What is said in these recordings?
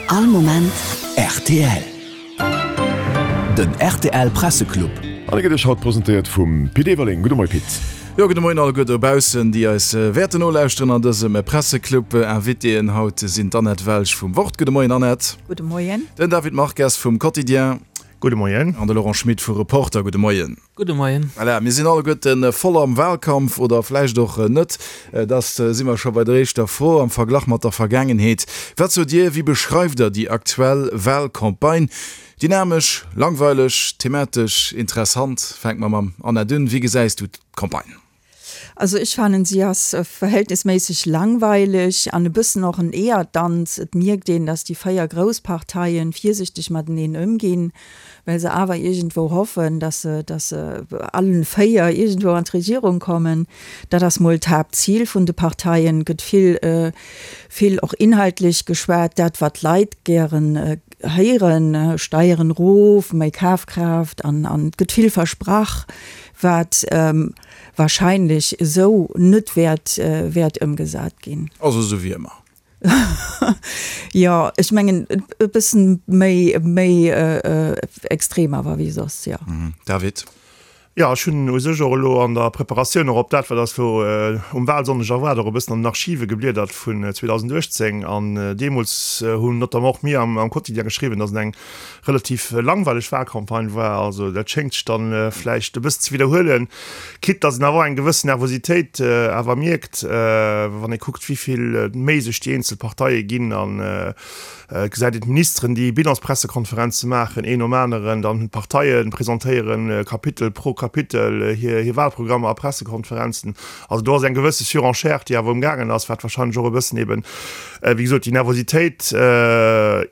All Moment rtl. Den rtl Presseclub. An e gëtt Iech haut presentéiert vum Pit Everling. Gudde Moie Pit. Jo, gudde Moien alleguer dobaussen, déi eis wäerten nolauschteren an dësem Presseclub. Invitéen haut sinn d'Annette Welsch vum Wort. Gudde Moien Annette. Gudde Moien. Den David Marques vum Quotidien. Gudde Moien. An de Laurent Schmit vu Reporter. Gudde Moien. Gudde Moien. Voilà, mir sinn alleguerten voll am Wahlkampf, oder vläicht och net. Da si mer scho bei der éischter Fro am Verglach mat der Vergaangenheet. Wat sot Dir, wéi beschreift Der déi aktuell Wahlcampagne? Dynamesch, langweileg, thematesch interessant? Fänke mer mam Annette un. Wéi gesäis du d'Campagne? Also ech fannen si ass verhältnisméisseg langweileg an e bëssen och en Eeërdanz. Et mierkt een, datt déi 4 grouss Parteien virsichteg mateneen ëmginn, well se awer iergendwou hoffen, datt se, datt se allen 4 iergendwou an d'Regierung kommen. Dat ass mol d'Haaptzil vun de Parteien. Et gëtt vill, vill och inhaltlech geschwat, dat wat d'Leit gären héieren, Steieren erof, méi Kafkraaft an an et gëtt vill versprach, wat wahrscheinlech esou net wäert wäert ëmgesat ginn. Also esou wéi ëmmer. Jo, ech mengen e bëssen méi méi extrem awer wéi soss, jo. David? Jo, ech hunn u sech och elo an der Preparatioun och op dat, wat eis elo um Wahlsonndeg erwaart, och e bëssen an den Archive gebliedert vun 2018. An deemools hunn notamment och mir am Quotidien geschriwwen, datt et eng relativ langweileg Wahlcampagne war. Also dat schéngt sech dann vläicht e bëssen ze widderhuelen, quitte datt een awer och eng gewëssen Nervositéit awer mierkt, wann ee kuckt, wéi vill Méi sech déi eenzel Parteie ginn an et gesäit een d'Ministeren, déi Bilanspressekonferenze maachen, een nom aneren, dann d'Parteie presentéieren Kapitel pro Kapitel hir Wahlprogrammer a Pressekonferenzen. Also do ass eng gewësse Surenchère, déi awer umgaangen ass, wat wahrscheinlech och e bëssen eben, wéi gesot, déi Nervositéit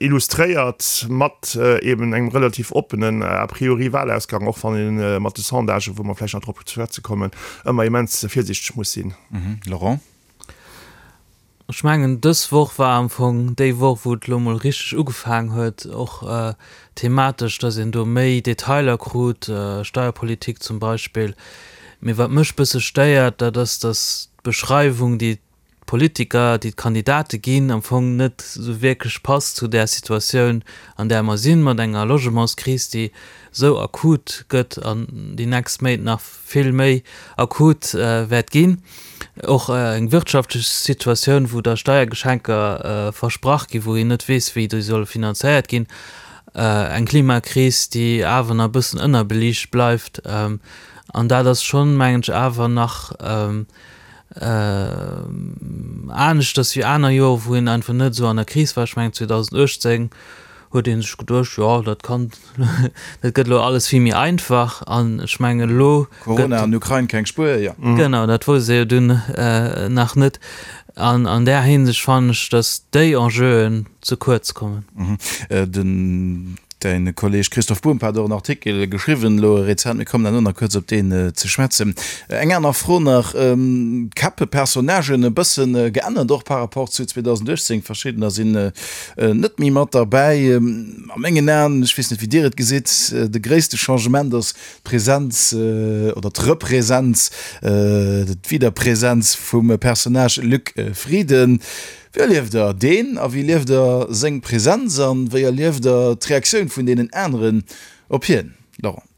illustréiert mat eben engem relativ oppenen a priori Wahlausgang, och wann ee mat de Sondagen, wou mer vläicht nach drop ze schwätze kommen, ëmmer immens virsiichteg muss sinn. Laurent? Ech mengen, dës Woch war am Fong déi Woch, wou et elo mol richteg ugefaangen huet, och thematesch, datt een do méi Detailer krut, Steierpolitik zum Beispill. Mee wat mech bësse stéiert, dat ass, datt d'Beschreiwung, déi d'Politiker, déi d'Kandidate ginn, am Fong net esou wierklech passt zu där Situatioun, an där mer sinn, mat enger Logementskris, déi esou akut gëtt an déi nächst Méint nach vill méi akut wäert ginn. Och eng wirtschaftlech Situatioun, wou da Steiergeschenker versprach ginn, wou een net weess, wéi déi solle finanzéiert ginn. Eng Klimakris, déi awer nach e bëssen ënnerbeliicht bleift. An dat ass schonn, mengen ech, awer nach aneschters wéi aner Joren, wou een einfach net esou an der Kris war. Ech mengen 2018 huet ee sech geduecht, jo dat kann, dat gëtt elo alles vill méi einfach an ech mengen elo gëtt. Corona an Ukrain, keng Spuer, jo. Genau, dat wousst ee jo dunn nach net. An an där Hinsicht fannen ech, datt déi Enjeuen ze kuerz kommen. Den Däin Kolleg Christoph Bumb hat och en Artikel geschriwwen elo rezent, mir kommen herno nach kuerz op deen ze schwätzen. Eng aner Fro nach, D'Käppe, Personnagen e bëssen geännert och par rapport zu 2018, verschiddener sinn net méi mat derbäi. A mengen Aen, ech weess net wéi Dir et gesitt, de gréisste Changement ass d'Presenz oder d'Represenz, d'Wiederpresenz vum Personnage Luc Frieden. Wéi erlieft der deen a wéi erlieft der seng Präsenz an wéi erlieft der d'Reaktioun vun deenen aneren op hien, Laurent?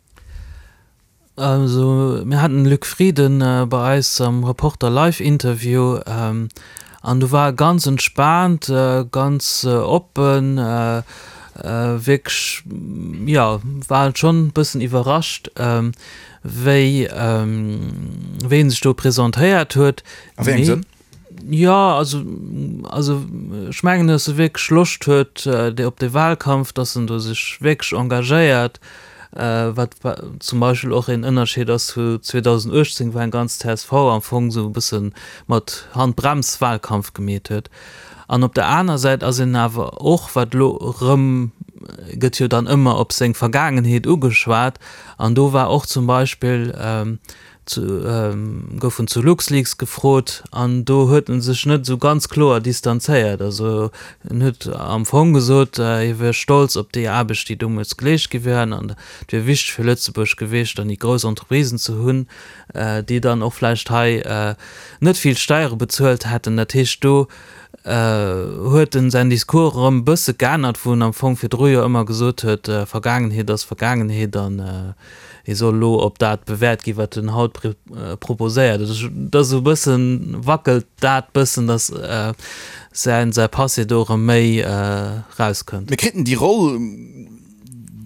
Also mir haten den Luc Frieden bei eis am Reporter Live Interview an do war e ganz entspaant, ganz oppen, wierklech jo war schonn e bëssen iwwerrascht wéi wéi en sech do presentéiert huet. A wéi engem Sënn? Jo, also, also ech mengen, datt e wierklech Loscht huet op dee Wahlkampf, datt en do sech wierklech engagéiert, wat zum Beispill och een Ënnerscheed ass zu 2018, wou eng ganz csv am Fong esou e bësse mat Handbrems Wahlkampf gemeet huet. An op der aner Säit ass een awer och, wat elo erëm, gëtt jo dann ëmmer op seng Vergaangenheet ugeschwat, an do war och zum Beispill, gouf en zu LuxLeaks gefrot an do huet en sech net esou ganz kloer distanzéiert. Also en huet am Fong gesot, hie wier stolz op déi Aarbecht, déi deemools geleescht gi wier an et wier wichteg fir Lëtzebuerg gewiescht, dann déi grouss Entreprisen ze hunn, déi dann och vläicht hei net vill Steiere bezuelt hätten. Dat heescht, do. Huet en säin Discours erëm e bësse geännert, wou en am Fong virdru jo ëmmer gesot huet, Vergaangenheet ass Vergaangenheet an e soll elo op dat bewäert ginn, wat en haut proposéiert. Also et ass esou e bëssen, wackelt dat bëssen, datt säin säi Passé do erëm méi erauskënnt. Mir kriten déi Roll,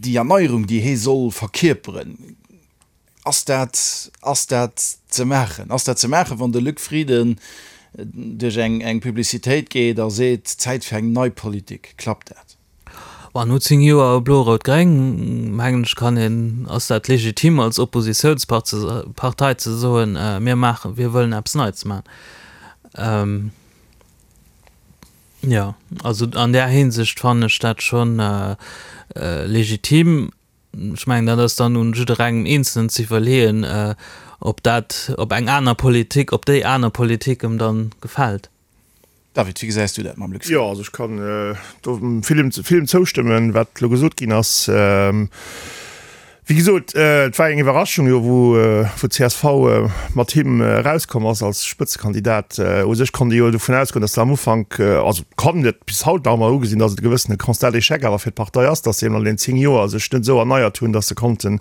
déi Erneierung, déi hee soll verkierperen. Ass dat, ass dat ze maachen? Ass dat ze maachen, wann de Luc Frieden duerch eng, eng Publicitéit geet a seet, Zäit fir eng nei Politik? Klappt dat? Bon, no 10 Joer Blo-Rout-Gréng, mengen ech, kann een, ass dat legitim als Oppositiounspartei ze soen, mir maachen, wir wëllen eppes Neits maachen. Jo, also an där Hinsicht fannen ech dat schonn legitim. Ech mengen, dat ass dann un jidderengem Eenzelnen ze iwwerleeën, ob dat, ob eng aner Politik, ob déi aner Politik em dann gefält. David, wéi gesäis du dat mam Luc Frieden? Jo, also ech kann do villem, villem zoustëmmen, wat elo gesot ginn ass. Wéi gesot, et war eng Iwwerraschung jo, wou, wou d'CSV mat him erauskomm ass als Spëtzekandidat. U sech konnt ee jo dovun ausgoen, datt se am Ufank, also kann et bis haut nach ëmmer ugesinn, datt et e gewëssene Constat d'échec awer fir d'Partei ass, datt se eben an den 10 Joer sech net esou erneiert hunn, datt se konnten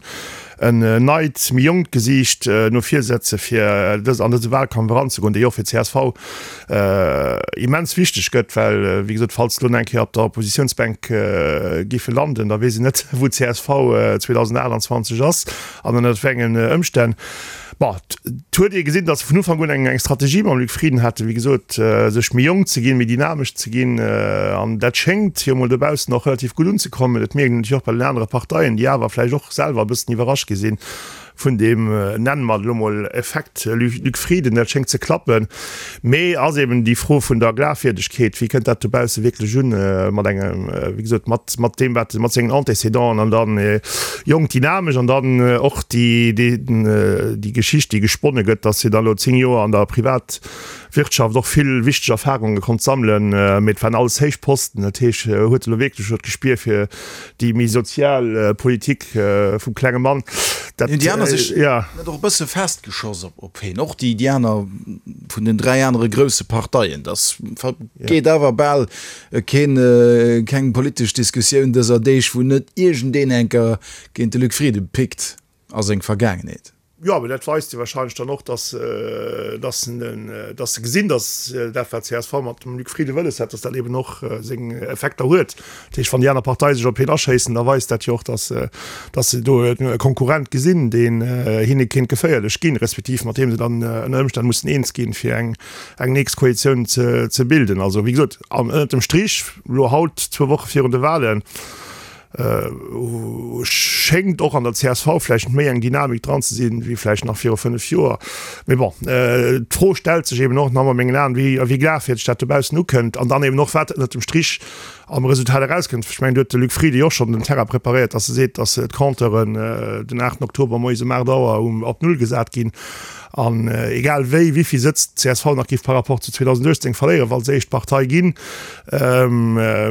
en neit, méi jonkt Gesiicht no vir setze fir dës an dëse Wahlkampf eranzegoen, dee jo och fir csv immens wichteg gëtt, well wéi gesot, falls se elo nach eng Kéier op der Oppositiounsbänk géife landen, da weess een net, wou csv 2028 ass an ënnert wéi engen Ëmstänn. Bon, et huet ee gesinn, datt se vun Ufank un eng Strategie mam Luc Frieden haten, wéi gesot, sech méi jonk ze ginn, méi dynamesch ze ginn. An dat schéngt jo mol dobaussen och relativ gutt unzekommen. Dat mierkt een natierlech och bei den anere Parteien, déi awer vläicht och selwer e bëssen iwwerrascht gi sinn vun deem, nenne mer et elo mol, Effekt Luc Frieden. Dat schéngt ze klappen. Mee ass eben déi Fro vun der Glafwierdegkeet, wéi kënnt dat dobausse wierklech un mat engem, wéi gesot, mat mat deem wat, mat sengen Antécédenten an dann jonk, dynamesch an dann och déi déi Geschicht, déi gesponne gëtt, datt hie da lo 10 Joer an der Privatwirtschaft och vill wichteg Erfarunge konnt sammelen. Mee et waren alles héich Posten, dat heescht, huet e lo wierklech elo d'Gespier fir déi méi sozial Politik vum klenge Mann. Dat, Hunn déi aner sech net och e bësse festgeschoss op op hien, och déi déi aner vun den 3 anere grousse Parteien? Dass geet awer bal Keen, keng politesch Diskussioun dëser Deeg, wou net iergendeen enker géint de Luc Frieden pickt a seng Vergaangenheet. Jo, mee dat weist jo wahrscheinlech dann och, dass, dass dass se gesinn, dass dat, wat csv mat dem Luc Frieden wëlles hat, dass dat eben och seng Effekter huet. Dat heescht, wann déi aner Partei sech op hien aschéissen, da weist dat jo och, dass, dass se do e Konkurrent gesinn, deen hinne kéint geféierlech ginn, respektiv mat deem se dann ënner Ëmstänn mussen eens ginn, fir eng eng nächst Koalitioun ze bilden. Also wéi gesot, an ënnert dem Strich, elo haut, zwou Woche virun de Wahlen, schéngt och an der csv vläicht méi eng Dynamik dran ze sinn, wéi vläicht nach viru 5 Joer. Mee bon, d'Fro stellt sech eben och nach ëmmer a mengen Aen, wéi a wéi glafwierdeg dat dobaussen ukënnt an dann eben och, wat ënnert dem Strich am Resultat erauskënnt. Ech mengen, do huet de Luc Frieden jo och schonn den Terrain preparéiert, datt e seet, datt d'Compteuren den 8 Oktober moies um 8 Auer op Null gesat ginn. An egal wéi, wéivill Sëtz d'CSV nach géif par rapport zu 2018 verléieren, wa se éischt Partei ginn,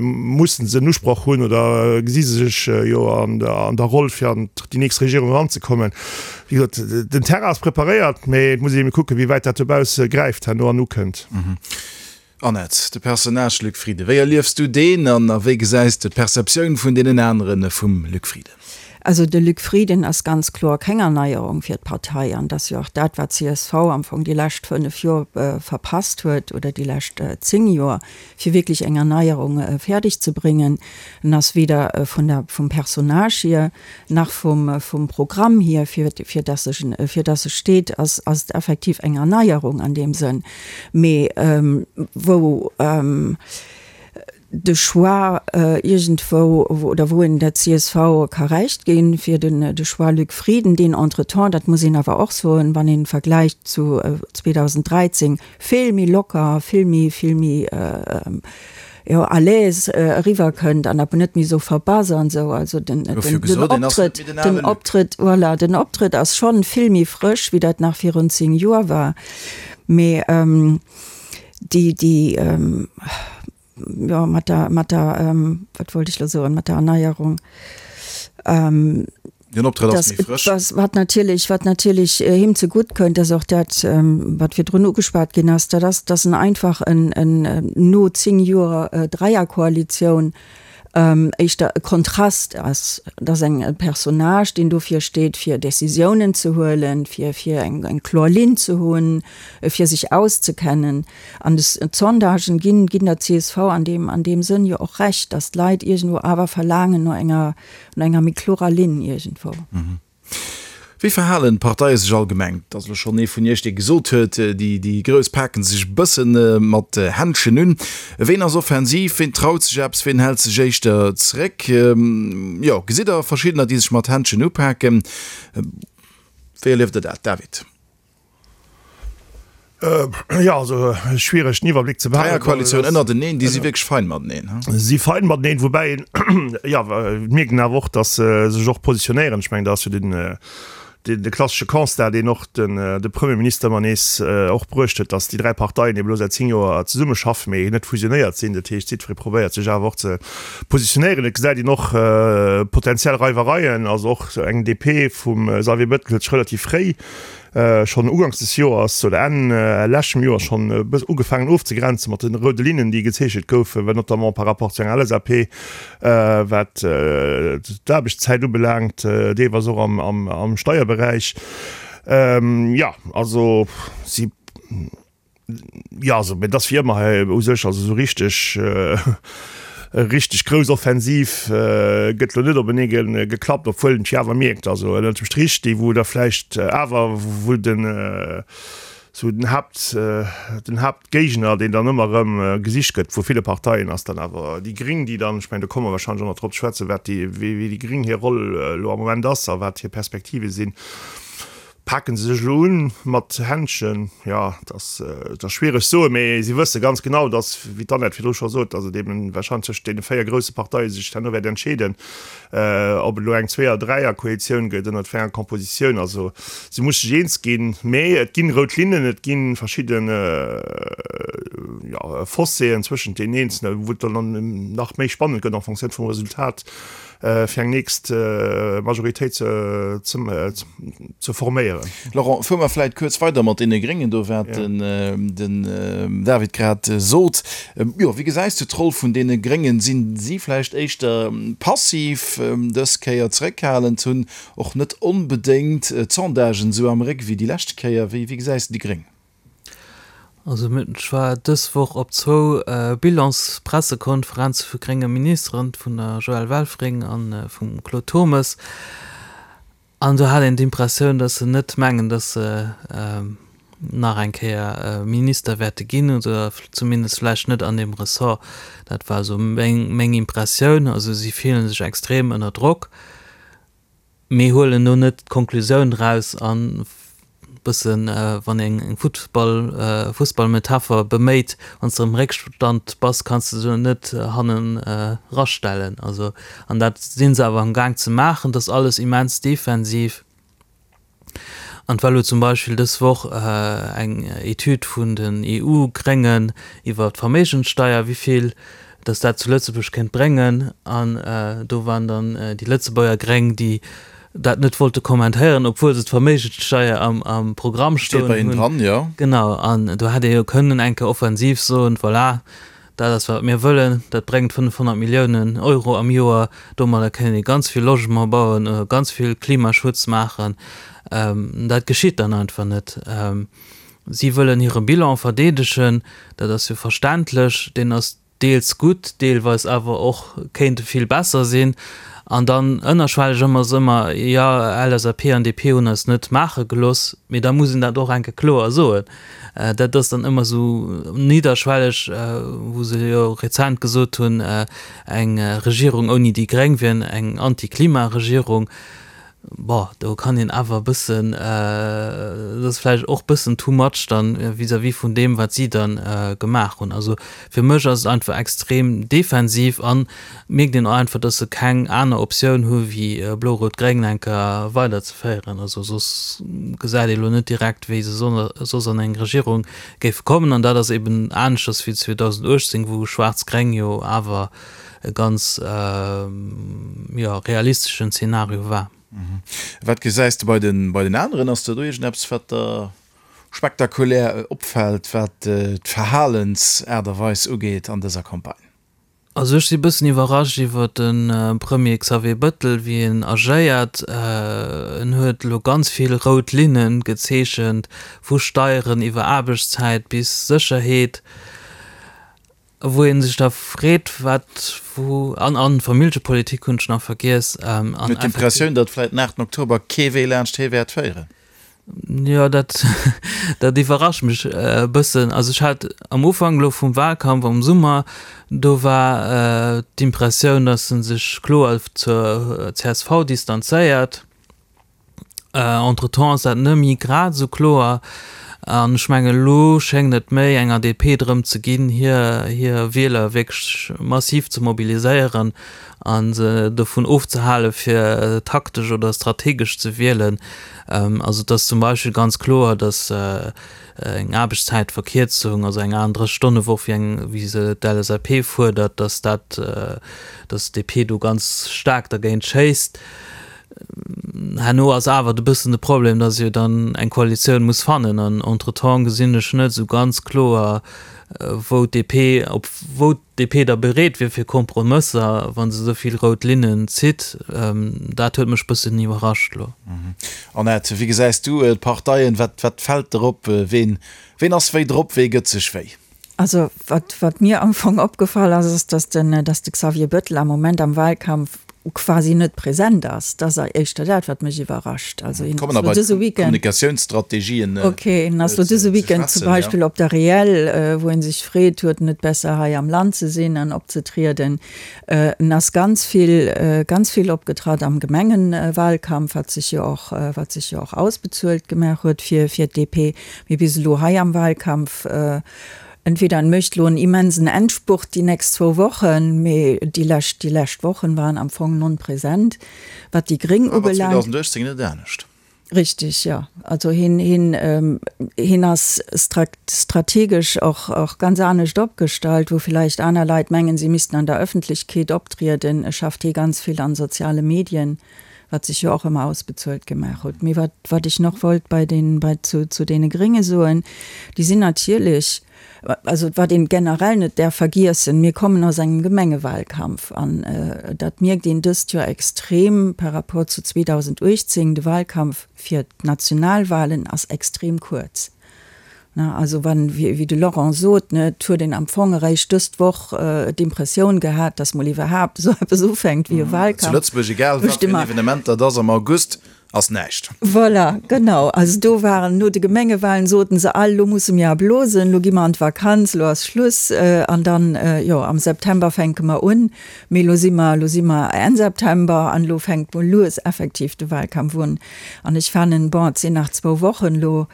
mussen se en Usproch hunn oder gesi se sech jo an der Roll, fir an déi nächst Regierung eranzekommen. Wéi gesot, den Terrain ass preparéiert, mee et muss ee ebe kucken, wéi wäit dat dobausse gräift herno an ukënnt. Annette, de Personnage Luc Frieden, wéi erliefs du deen an a wéi gesäis de d'Perceptioun vun deenen aneren vum Luc Frieden? Also de Luc Frieden ass ganz kloer keng Erneierung fir d'Partei an dat ass jo och dat, wat csv am Fong déi lescht 5 Joer verpasst huet oder déi lescht 10 Joer, fir wierklech eng Erneierung fäerdeg ze bréngen. En ass weder vun der, vum Personnage hier, Nach vum vum Programm hier, fir fir dass ech fir dass e steet, ass ass et effektiv eng Erneierung an deem Sënn. Mee wou de Choix iergendwou oder wou een der csv ka Recht ginn, fir den de Choix Luc Frieden, deen entretemps, dat muss een awer och soen, wann een vergläicht zu 2013, vill méi locker, vill méi vill méi jo à l'aise eriwwer kënnt an awer net méi esou verbass an esou. Also den Optrëtt, den Optrëtt, voilà, den Optrëtt ass schonn vill méi frësch wéi dat nach virun 10 Joer war. Mee déi, déi, jo mat der, mat der, wat wollt ech elo soen, mat der Erneierung. Den Optrëtt ass méi frësch. Was, wat natierlech, wat natierlech him zegutt kënnt, ass och dat, wat virdrun ugeschwat ginn ass, dat ass, dass en einfach en, en no 10 Joer Dräierkoalitioun éischter e Kontrast ass. Et ass eng, e Personnage, deen dofir steet, fir Décisiounen ze huelen, fir, fir eng, eng kloer Linn ze hunn, fir sech auszekennen. An d'Sondagen ginn, ginn der csv an deem, an deem Sënn jo och Recht, dass d'Leit iergendwou awer verlaangen no enger, no enger méi klorer Linn iergendwou. Wéi verhalen d'Parteie sech allgemeng? Et ass elo schonn ee vun Iech, dee gesot huet, déi, déi Grouss paken sech e bësse mat Händschen un. Ween ass offensiv, ween traut sech eppes, ween hält sech éischter zeréck? Jo, gesitt Der verschiddener, déi sech mat Händschen upaken? Wéi erlieft Der dat, David? Jo, also schwiereg den Iwwerbléck ze behalen. Dräierkoalitioun ënnerteneen, déi si wierklech fein mateneen, he? Si fein mateneen, woubäi een, jo, et mierkt een awer och, datt se sech och positionéieren. Ech mengen, dat ass jo den, de klassesche Constat, deen och den, de Premierminister ëmmer nees och bruecht huet, datt déi 3 Parteien ebe lo säit 10 Joer zesummeschaffen, mee net fusionéiert sinn. Dat heescht, jiddweree probéiert sech awer och ze positionéieren. Et gesäit een och potentiell Reiwereien, also och eng DP vum Xavier Bettel huet sech relativ fréi schonn uganks des Joers oder Enn leschtem Joer schonn e bëss ugefaangen ofzegrenzen mat de roude Linnen, déi gezeechent goufen, well notamment par rapport zu enger LSAP, wat d'Aarbechtszäit ubelaangt, deelweis och am Steierberäich. Jo, also si. Jo, also, mee et ass wéi ëmmer hei u sech, also esou richteg, richteg grouss Offensiv gëtt elo net openee geklappt, obwuel een et jo awer mierkt, also ënnert dem Strich, déi wou da vläicht awer, wou den esou den Haapt, den Haaptgéigner, deen dann ëmmer erëm gesicht gëtt vu ville Parteien, ass dann awer déi Gring, déi dann, ech mengen, do komme mer wahrscheinlech och nach drop ze schwätzen, wat déi, wéi déi Gring hir Roll elo am Moment ass a wat hir Perspektive sinn. Paken se sech elo un mat Händschen? Jo, et ass, et ass schwiereg soen, mee si wësse ganz genau, datt, wéi d'Annette virdru scho sot, datt et eben wahrscheinlech tëscht deene 4 grousse Parteie sech herno wäert entscheeden, ob et elo eng Zweeër-, Dräier-Koalitioun gëtt, ënnert wéi enger Kompositioun. Also si muss sech eens ginn, mee et ginn rout Linnen, et gi verschidden, jo, Fosséen zwëschent deenen eenzelen, wou et dann nach méi spannend gëtt en Fonctioun vum Resultat. fir eng nächst Majoritéit ze forméieren. Laurent, fuere mer vläit kuerz weider mat deene Gréngen do, wat den David grad sot. Jo, wéi gesäis du d'Roll vun deene Gréngen? Sinn si vläicht éischter passiv dës Kéier, zeréckhalend, hunn och net onbedéngt d'Sondagen esou am Réck wéi déi lescht Kéier? Wéi gesäis de déi Gréng? Also ech war dës Woch op zwou Bilanspressekonferenze vu grénge Ministeren, vun der Joëlle Welfring a vum Claude Turmes, an do hat een d'Impressioun, datt se net mengen, datt se nach eng Kéier Minister wäerte ginn, oder zumindest vläicht net an deem Ressort. Dat war esou meng Impressioun. Also si fillen sech extrem ënner Drock. Mee huelen do net d'Konklusioun draus an bëssen, wann een eng Futtball, Fussballmetapher beméit, wann s de am Réckstand bass, kanns de se net hannen rastellen. Also, an dat si se awer am Gaang ze maachen, dat ass alles immens defensiv. An et war elo zum Beispill dës Woch eng Etüd vun den EU-Gréngen iwwer d'Verméigenssteier, wéi vill datt dat zu Lëtzebuerg kéint bréngen. An do waren dann déi Lëtzebuerger Gréng, déi dat net wollte kommentéieren, obwuel se d'Verméigenssteier am Programm stoen hunn. Genau, an do hätt ee jo kënnen eng Kéier offensiv soen, voilà, Dat ass, wat mir wëllen. Dat bréngt 500 Milliounen Euro am Joer. Domadder kënnen ee ganz vill Logement bauen, ganz vill Klimaschutz maachen. Dat geschitt dann einfach net. Si wëllen hire Bilan verdeedegen. Dat ass jo verständlech. Deen ass deels gutt, deelweis awer och kéint e vill besser sinn. An dann ënnerschwelleg ëmmer ass ëmmer, jo, LSAP an DP hunn eis net maache gelooss. Mee da muss een dat och eng Kéier kloer soen. Dat ass dann ëmmer esou nidderschwelleg, wou se jo rezent gesot hunn, eng Regierung ouni déi Gréng wier eng Anti-Klima-Regierung. Bon, do kann een awer e bëssen, dat ass vläicht och e bëssen too much dann vis-à-vis vun deem, wat si dann gemaach hunn. Also fir mech ass et einfach extrem defensiv an mierkt een och einfach, dass se keng aner Optioun hu wéi Blo-Rout-Gréng enker weiderzeféieren. Also soss gesäit ee lo net direkt, wéi se soss an eng Regierung géife kommen. An dat ass eben aneschters wéi 2018, wou Schwaarz-Gréng jo awer e ganz, jo, realisteschen Zeenario war. Wat gesäis de bei den, bei den aneren? Ass der do iergendeppes, wat der spektakulär opfält, wat d'Verhalensaart a Weis ugeet an dëser Campagne? Also ech si bëssen iwwerrascht iwwer de Premier Xavier Bëttel, wéi en agéiert. En huet elo ganz vill rout Linne gezeechent, vu Steieren iwwer Aarbechtszäit bis Sécherheet, wou ee sech da freet, wat wou, an an Familljepolitik hunn ech nach vergiess. An Huet d'Impressioun, datt vläicht den 8 Oktober kee Wee laanscht hie wäert féieren. Jo, dat, dat iwwerrascht mech e bëssen. Also ech hat am Ufank elo vum Wahlkampf am Summer, do war d'Impressioun, datt e sech kloer zur csv distanzéiert. Entretemps ass dat net méi grad esou kloer. An ech mengen, elo schéngt et méi enger DP drëm ze ginn, hir, hir Wieler wierklech massiv ze mobiliséieren a se dovun ofzehale fir taktesch oder strategesch ze wielen. Also et ass zum Beispill ganz kloer, datt eng Aarbechtszäitverkierzung, also eng 38 Stonne Woch, wéi eng, wéi se d'LSAP fuerdert, datt dat, datt d'DP do ganz staark dergéint schéisst. Herno ass awer e bëssen de Problem, datt se jo dann eng Koalitioun muss fannen an entretemps gesinn ech net esou ganz kloer, wou d'DP, op wou d'DP da bereet wier fir Kompromësser, wa se esou vill rout Linnen zitt. Dat huet mech bëssen iwwerrascht elo. Annette, wéi gesäis du d'Parteien? Wat, wat fält der op? Ween, ween ass wéi drop? Wee gëtt sech wéi? Also wat, wat mir am Fong opgefall ass, ass, datt den, datt de Xavier Bettel am Moment am Wahlkampf quasi net present ass. Dat ass éischter dat, wat mech iwwerrascht. Also hien ass lo dëse Weekend. Kommunikatiounsstrategien. Okay, hien ass lo dëse Weekend zum Beispill op der Reel, wou en sech freet, huet en net besser hei am Land ze sinn an opzetrieden. En ass ganz vill, ganz vill opgetratt am Gemengenwahlkampf, wat sech jo och, wat sech jo och ausbezuelt gemaach huet fir, fir d'DP. Mee bis elo hei am Wahlkampf, Entweder en mécht elo en immensen Endspurt déi nächst zwou Wochen, mee déi lescht, déi lescht Wochen waren am Fong non present. Wat déi Gréng War ubelaangt. 2018 net anescht. Richtig, jo. Also hien, hien, hien ass strategesch och, och ganz anescht opgestallt, wou villäicht aner Leit mengen, si missten an der Öffentlechkeet optrieden, schafft hie ganz vill an soziale Medien, wat sech jo och ëmmer ausbezuelt gemaach huet. Mee wat, wat ech nach wollt bei den, bei, zu, zu deene Grénge soen, déi sinn natierlech, also wat een generell net däerf vergiessen, mir kommen aus engem Gemengewahlkampf an dat mierkt een dëst Joer extrem par rapport zu 2018, de Wahlkampf fir d'Nationalwahlen ass extrem kuerz. Ne, also wann, wéi de Laurent sot, ne, et huet een am Fong eréischt dëst Woch d'Impressioun gehat, datt mol iwwerhaapt esou eppes ufänkt wéi e Wahlkampf. Zu Lëtzebuerg, egal wat fir en Evenement dat ass am August, ass näischt. Voilà, genau. Also do waren, no de Gemengewahlen soten se all, lo musse mir erblosen, lo gi mer an d'Vakanz, lo ass Schluss an dann, jo, am September fänke mer un. Mee lo si mer, lo si mer Enn September an elo fänkt mol lues effektiv de Wahlkampf un. An ech fannen, bon, et sinn nach zwou Wochen elo,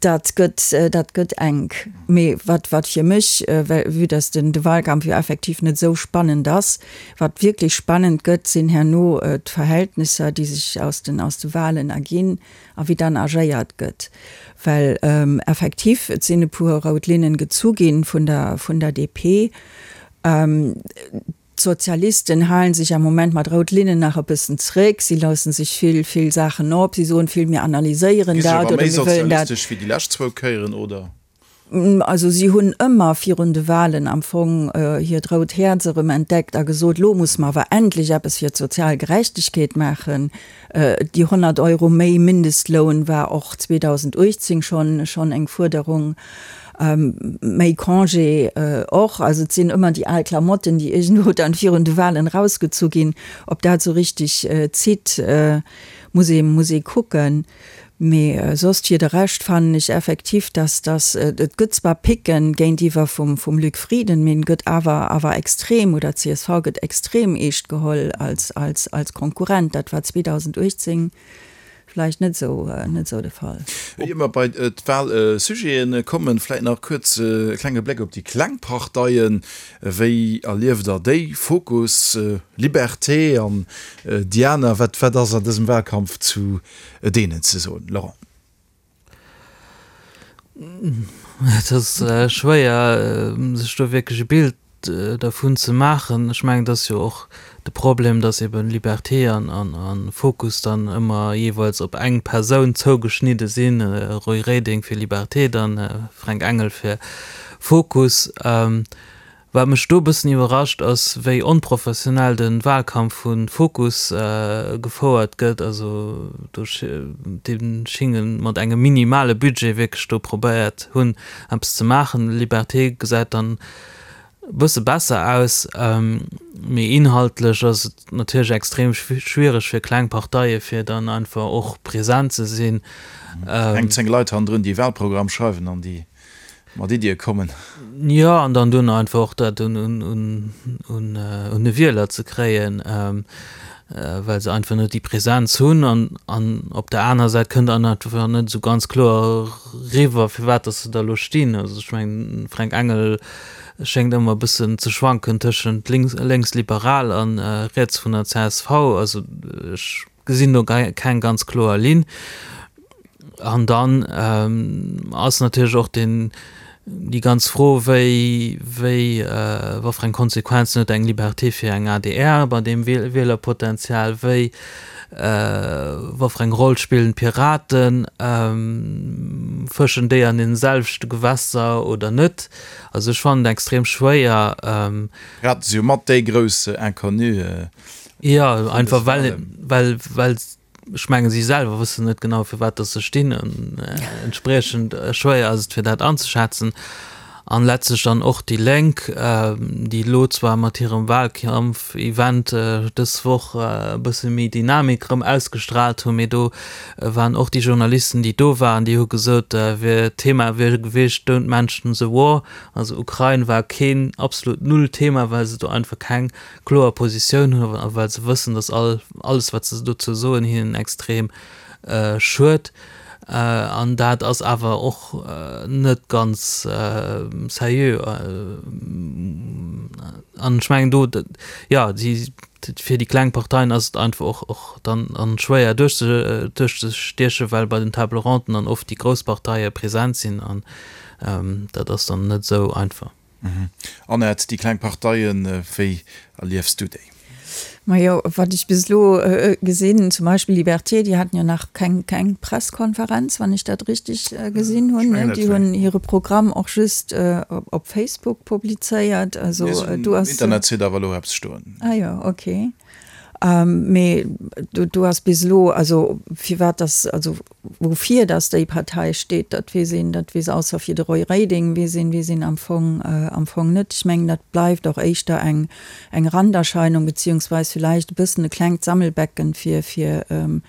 Dat gëtt, dat gëtt enk. Mee wat, wat fir mech, well vue dass den, de Wahlkampf jo effektiv net esou spannend ass, wat wierklech spannend gëtt, sinn herno d'Verhältnisser, déi sech aus den, aus de Wahlen erginn a wéi dann agéiert gëtt. Well effektiv, et sinn e puer rout Linnen gezu ginn vun der, vun der DP. D'Sozialisten halen sech am Moment mat rout Linnen nach e bëssen zréck. Si loossen sech vill, vill Saachen op. Si soen vill, mir analyséieren Gi sech dat awer oder méi mir wëllen dat. sozialistesch wéi déi lescht zwou Kéieren, oder? Also si hunn ëmmer virun de Wahlen am Fong hiert rout Häerz erëm entdeckt a gesot, lo musse mer awer endlech eppes fir d'sozial Gerechtegkeet maachen. Déi 100 Euro méi Mindestloun war och 2018 schonn schonn eng Fuerderung. Méi Congé och. Also et sinn ëmmer déi al Klamotten, déi iergendwou dann virun de Wahlen erausgezu ginn. Ob dat esou richtig zitt, muss ee muss ee kucken. Mee soss fir de Rescht fannen ech effektiv, dass dass et gëtt zwar Picken géintiwwer vum vum Luc Frieden, mee en gëtt awer awer extrem, oder d'CSV gëtt extrem eescht geholl als als als Konkurrent. Dat war 2018 vläicht net esou net esou de Fall. Ier mer bei d'Wahlsujeten kommen, vläicht nach kuerz e klenge Bléck op déi kleng Parteien. Wéi erlieft Der déi? Fokus, Liberté an déi aner. Wat wat ass an dësem Wahlkampf zu deenen ze soen, Laurent? Et ass schwéier, sech do wierklech e Bild. dervun ze maachen. Ech mengen, et ass jo och de Problem, datt eben Liberté an Fokus dann ëmmer jeeweils op eng Persoun zougeschnidde sinn, Roy Reding fir Liberté, dann Fränk Engel fir Fokus. Wat mech do e bëssen iwwerrascht ass, wéi onprofessionell de Wahlkampf vu Fokus gefouert gëtt. Also do déi schinge mat engem minimale Budget wierklech do probéiert hunn eppes ze maachen. Liberté gesäit dann e bësse besser aus, mee inhaltlech ass et natierlech extrem schwiereg fir kleng Parteie fir dann einfach och present ze sinn. Eng 10 Leit hannendrun déi Wahlprogramm schreiwen an déi mat Iddie kommen. Jo, an dann duerno einfach och dat un de Wieler ze kréien, well se einfach net déi Präsenz hunn. An op der anerer Säit kënnt dann einfach net esou ganz kloer eriwwer, firwat datt se da elo stinn. Also ech mengen, de Fränk Engel schéngt ëmmer e bëssen ze schwanken tëschent lénksliberal a riets vun der csv. Also ech gesinn do keng ganz kloer Linn. An dann ass natierlech och den, déi ganz Fro, wéi, wéi, wat fir eng Konsequenzen huet eng Liberté fir eng adr bei deem Wielerpotenzial, wéi, wat fir eng Roll spillen d'Piraten, fëschen déi an deene selwechte Gewässer oder net? Also ech fannen et extrem schwéier. D'Piraten si jo mat déi grouss Inconnue. Jo, einfach well, well, well ech mengen, si selwer wëssen net genau, firwat dass se stinn. An entspriechend schwéier ass et, fir dat anzeschätzen. An letztlech dann och déi Lénk, déi elo zwar mat hirem Wahlkampf-Event dës Woch e bësse méi Dynamik erëm ausgestrahlt hunn, mee do waren och déi Journalisten, déi do waren, déi hu gesot, wier d'Thema wier gewiescht Don't mention the war. Also Ukrain war keen, absolut null Thema, well se do einfach keng kloer Positioun hunn a well se wëssen, datt all alles wat se dozou soen hinnen extrem schued. An dat ass awer och net ganz seriö. An ech mengen do, jo, si fir déi kleng Parteien ass et einfach och och dann an schwéier duerchzestiechen, well bei den Table Ronden dann oft déi grouss Parteie present sinn an dat ass dann net esou einfach. Annette, déi kleng Parteien, wéi erliefs du déi? Majo, wat ech bis elo gesinn, zum Beispill Liberté, déi haten jo nach keng keng Presskonferenz, wann ech dat richtig gesinn hunn. Déi hunn hire Programm och just op Facebook publizéiert. Also do ass. Um Internetsite awer elo eppes stoen. Ah jo, okay. Mee do ass bis elo, also firwat dass, also woufir dass déi Partei steet, dat weess een, dat weess ausser fir de Roy Reding weess een, weess een am Fong, am Fong net. Ech mengen, dat bleift och éischter eng, eng Randerscheinung beziehungsweis villäicht e bëssen e klengt Sammelbecken fir, fir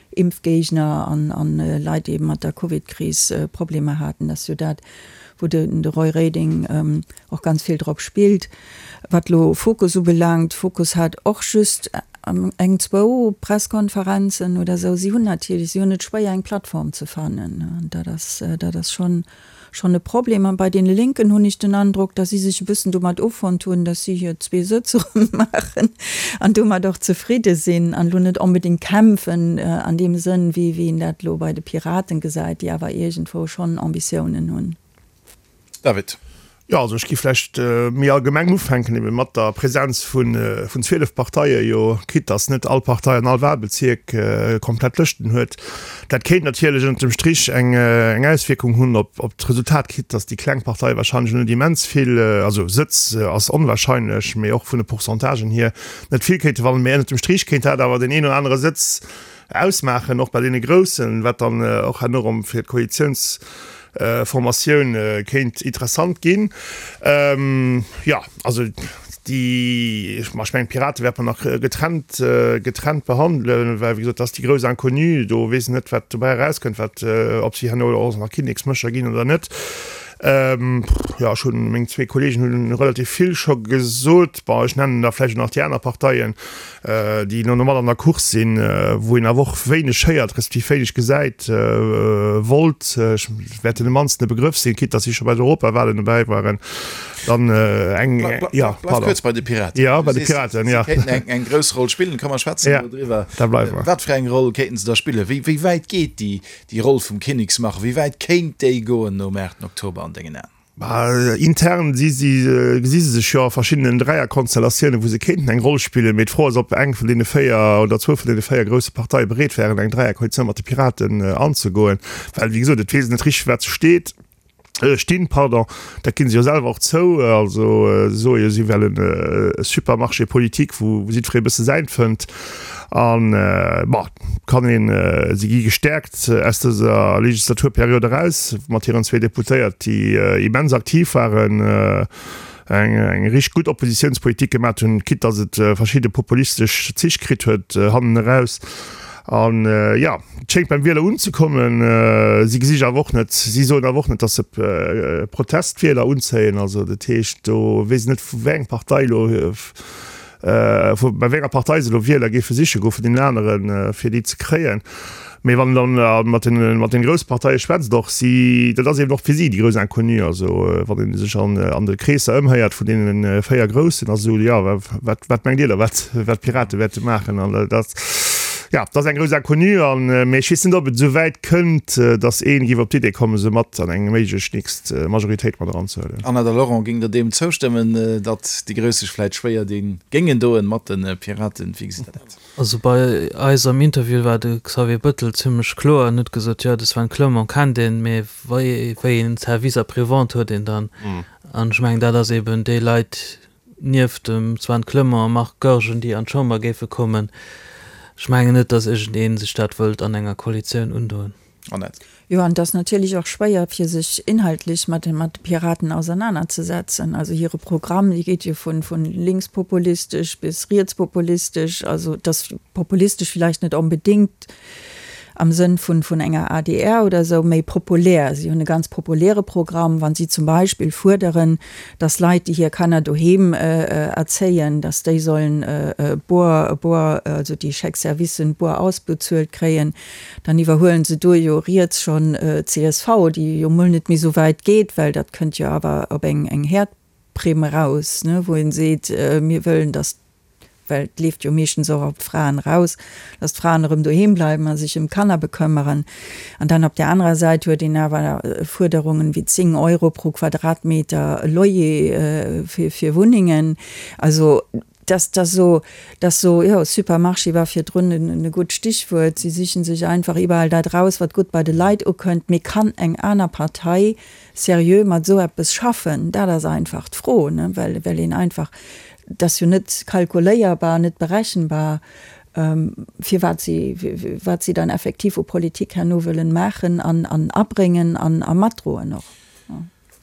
Impfgéigner an, an Leit, déi ebe mat der Covidkris Problemer haten. Dat ass jo dat, wou de, de Roy Reding och ganz vill drop spillt. Wat elo Fokus ubelaangt, Fokus hat och just eng, zwou Presskonferenzen oder esou. Si hunn natierlech, si hunn et schwéier eng Plattform ze fannen. Dat ass, dat ass schonn, schonn e Problem. An bei deene Lénken hunn ech den Androck, datt si sech e bëssen domat offonnt hunn, datt si hir zwee Sëtz erëm maachen an domat och zefridde sinn an elo net onbedéngt kämpfen an deem Sënn, wéi wéi een dat elo bei de Piraten gesäit, déi awer iergendwou schonn Ambitiounen hunn. David. Jo, also ech gi vläicht méi allgemeng ufänken, ebe mat der Präsenz vun 12 Parteie jo, quitte dass net all Partei an all Wahlbezierk komplett Lëschten huet. Dat kéint natierlech ënnert dem Strich eng Auswierkung hunn op d'Resultat, quitte dass déi kleng Parteie wahrscheinlech net immens vill, also Sëtz ass onwahrscheinlech, mee och vun de Pourcentagen hier net vill kéinte wannen. Mee ënnert dem Strich kéint dat awer deen een oder anere Sëtz ausmaachen, och bei deene Groussen, wat dann och herno erëm fir d'Koalitiounsformatioun kéint interessant ginn. Jo, also déi, ma ech mengen d'Pirate wäerte mer nach getrennt, getrennt behandelen, well wéi gesot, dat ass déi grouss Inconnue, do weess een net, wat dobäi erauskënnt, wat, ob si herno och nach Kinneksmécher ginn oder net. Jo, ech hunn, meng zwee Kollegen hunn relativ vill scho gesot. Bon, ech nennen da vläicht och nach déi aner Parteien, déi elo mat an der Course sinn, wou een awer och wéineg héiert, respektiv wéineg gesäit. Volt, ech wäert deene mannsten e Begrëff sinn, quitte datt si scho bei den Europawahlen dobäi waren. Dann eng, jo, pardon. Bleif kuerz bei de Piraten. Jo, bei de Piraten, jo. Si kéinten eng grouss Roll spillen, komm mer schwätzen elo driwwer. Da bleiwe mer. Wat fir eng Roll kéinten se da spillen? Wéi, wéi wäit geet déi, déi Roll vum Kinneksmacher? Wéi wäit kéint déi goen nom 8 Oktober an dengen Aen? Intern si si, gesi se sech jo a verschiddenen Dräierkonstellatiounen, wou se kéinten eng Roll spillen. Mee d'Fro ass, ob eng vun deene 4 oder zwou vun deene 4 grousse Parteie bereet wären, eng Dräierkoalitioun mat de Piraten anzegoen. Well, wéi gesot, et weess een net richteg, wat se steet, stinn, pardon. Dat ginn se jo selwer och zou. Also se soe jo, si wellen e Supermarché politique, wou jiddweree e bësse säint fënnt. An, bon, kann een, si gi gestäerkt aus dëser Legislaturperiod eraus mat hiren zwee Deputéiert, déi immens aktiv waren, eng eng richteg gutt Oppositiounspolitik gemat hunn, quitte datt et verschidde populistesch Zich kritt huet hannen eraus. An, jo, et schéngt beim Wieler unzekommen. Si gesi sech awer och net, si soen awer och net, datt se Protestwieler unzéien. Also dat heescht, do weess een net, vu wéi eng Partei elo, Vu bei wéi enger Partei se elo Wieler géife siche goe vun deenen aneren, fir déi ze kréien. Mee wann een dann mat den, mat den grousse Parteie schwätzt, och si, dat ass eben och fir si déi grouss Inconnue. Also wann ee sech an, an de Kreesser ëmhéiert vun deene 4 Groussen, ass esou, jo, wat, wat mengt Dir da, wat, wat d'Pirate wäerte maachen? An dat, jo, dat ass eng grouss Inconnue. An, mee ech weess net, ob et esou wäit kënnt, datt ee géif op d'Idee kommen, se mat an eng méiglech nächst Majoritéit mat eranzehuelen. Anna, De Laurent, géing Der deem zoustëmmen, datt déi Grouss sech vläit schwéier di géingen doen mat de Piraten? Wéi gesitt Der dat? Also bei eis am Interview war de Xavier Bettel zimmlech kloer en huet gesot, jo de Sven Clement kennt een, mee wéi een Service après-vente huet een dann? An ech mengen dat ass eben déi Leit nieft dem Sven Clement a Marc Goergen déi an d'Chamber géife kommen. Ech mengen net, datt iergendee sech dat wëllt an enger Koalitioun undoen. Annette. Jo, an et ass natierlech och schwéier, fir sech inhaltlech mat de Piraten ausernanerzesetzen. Also hire Programm, dee geet jo vu linkspopulistesch bis rietspopulistesch. Also et ass populistesch villäicht net onbedéngt am Sënn vun enger adr oder esou, méi populär. Si hunn e ganz populäre Programm, wa si zum Beispill fuerderen, datt Leit, déi hir Kanner doheem erzéien, datt déi sollen boer, boer, also déi Chèque-servicen boer ausbezuelt kréien. Dann iwwerhuelen se do jo riets schonn csv, déi jo mol net méi esou wäit geet, well dat kënnt jo awer op eng eng Häerdprimm eraus, ne, wou een seet, mir wëllen, datt, well et leeft jo meeschtens och op d'Fraen eraus, datt d'Fraen erëm doheem bleiwen a sech ëm d'Kanner bekëmmeren. An dann op där anerer Säit huet een awer Fuerderungen wéi 10 Euro pro Quadratmeter Loyer fir fir Wunnengen. Also Dass dass so, dass so, jo, Supermarché war virdrun e gutt Stichwuert. Si sichen sech einfach iwwerall dat raus, wat gutt bei de Leit ukënnt. Mee kann eng aner Partei seriö mat esou eppes schaffen? Dat ass einfach d'Fro, ne, well, well een einfach, dat ass jo net kalkuléierbar, net berechenbar, firwat si, wat si dann effektiv u Politik herno wëllen maachen an, an abréngen an a matdroen och.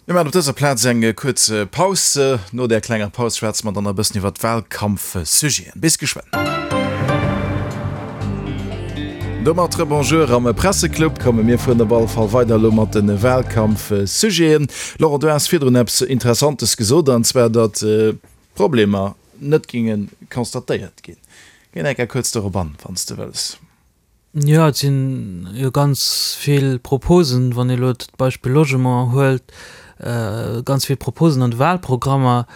Mir maachen op dëser Plaz eng kuerz Paus. No där klenger Paus schwätze mer dann e bëssen iwwer d'Wahlkampfsujeten. Bis geschwënn. Domat Rebonjour am Presseclub. Komme mir fueren op alle Fall weider elo mat de Wahlkampfsujeten. Laurent, du has virdrun eppes Interessantes gesot, an zwar datt Problemer net géinge constatéiert ginn. Géi nach eng Kéier kuerz dorop an, wann s de wëlls. Jo, et sinn jo ganz vill Proposen, wann ee elo d'Beispill Logement huelt, ganz vill Proposen an de Wahlprogrammer.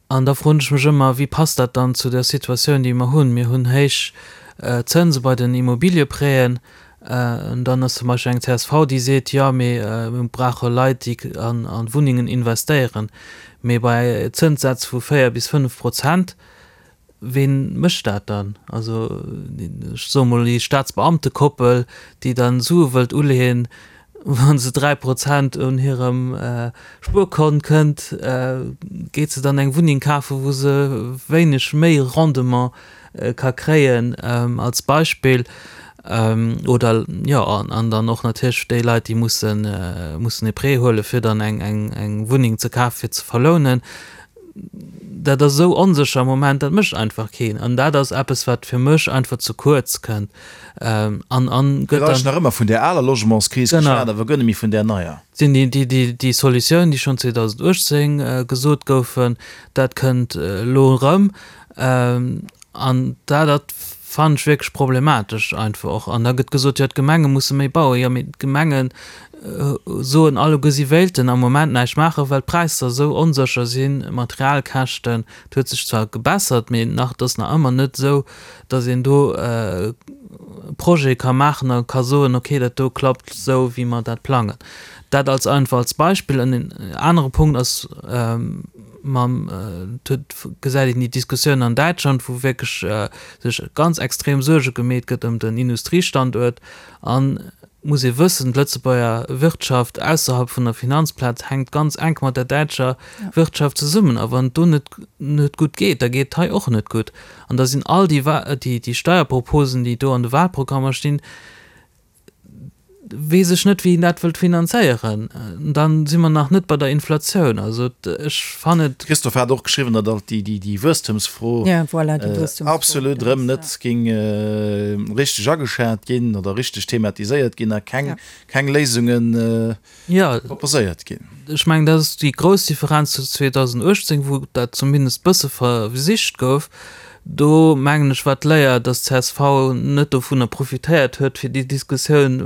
An da froen ech mech ëmmer, Wéi passt dat dann zu der Situatioun, déi mer hunn? Mir hunn héich Zënse bei den Immobiliëprêten. An dann ass zum Beispill eng csv, déi seet, Jo, mee mir brauche Leit, déi an Wunnengen investéieren. Mee bei Zënssätz vu 4 bis 5 Prozent Ween mécht dat dann? Also, ech soe mol déi Staatsbeamtekoppel, déi dann Sue wëllt uleeën, wa se 3 Prozent un hirem Spuerkont kënnt, geet se dann eng Wunneng kafen, wou se wéineg méi Rendement ka kréien, als Beispill. Oder, jo, an dann och natierlech déi Leit, déi mussen mussen e Prêt huelen, fir dann eng Wunneng ze kafen, fir ze verlounen. Dat ass esou onsécher am Moment, dat mécht einfach keen. An dat ass eppes, wat fir mech einfach ze kuerz kënnt. An, an gëtt dann. Gëtt nach ëmmer vun där aler Logementskris geschwat, awer guer net méi vun där neier. Sinn déi, déi, déi, déi Solutiounen, déi schonn 2018 gesot goufen, dat kënnt elo erëm. An dat, dat fannen ech wierklech problematesch einfach och. An da gëtt gesot, jo d'Gemenge musse méi bauen. Jo, mee d'Gemenge soen alleguer, si wéilten am Moment näischt maachen, well d'Präisser esou onsécher sinn, d'Materialkäschten. Et huet sech zwar gebessert, mee nach, et ass nach ëmmer net esou, datt een do. Projet ka maachen a ka soen, okay, dat do klappt esou, wéi mer dat plangen. Dat als einfach als Beispill. En anere Punkt ass, mam, et huet, gesäit een déi Diskussioun an Däitschland, wou wierklech sech ganz extrem Suerge gemeet gëtt ëm den Industriestanduert. An et muss ee wëssen, d'Lëtzebuerger Wirtschaft ausserhalb vun der Finanzplaz hänkt ganz enk mat der däitscher Wirtschaft zesummen. A wann et do net net gutt geet, da geet et hei och net gutt. An da sinn all déi déi Steierproposen, déi do an de Wahlprogrammer stinn, weess ech net, wéi een dat wëllt finanzéieren. Dann si mer nach net bei der Inflatioun. Also ech fannen et. Christophe hat och geschriwwen, datt alt déi Wuesstemsfro absolut erëm net géing richteg ageschat ginn oder richteg thematiséiert ginn a keng Léisunge proposéiert ginn. Ech mengen, dat ass déi grouss Differenz zu 2018, wou dat zumindest bësse versicht gouf. Do, mengen ech, war d'Léier, datt csv net dovunner profitéiert huet, fir déi Diskussioun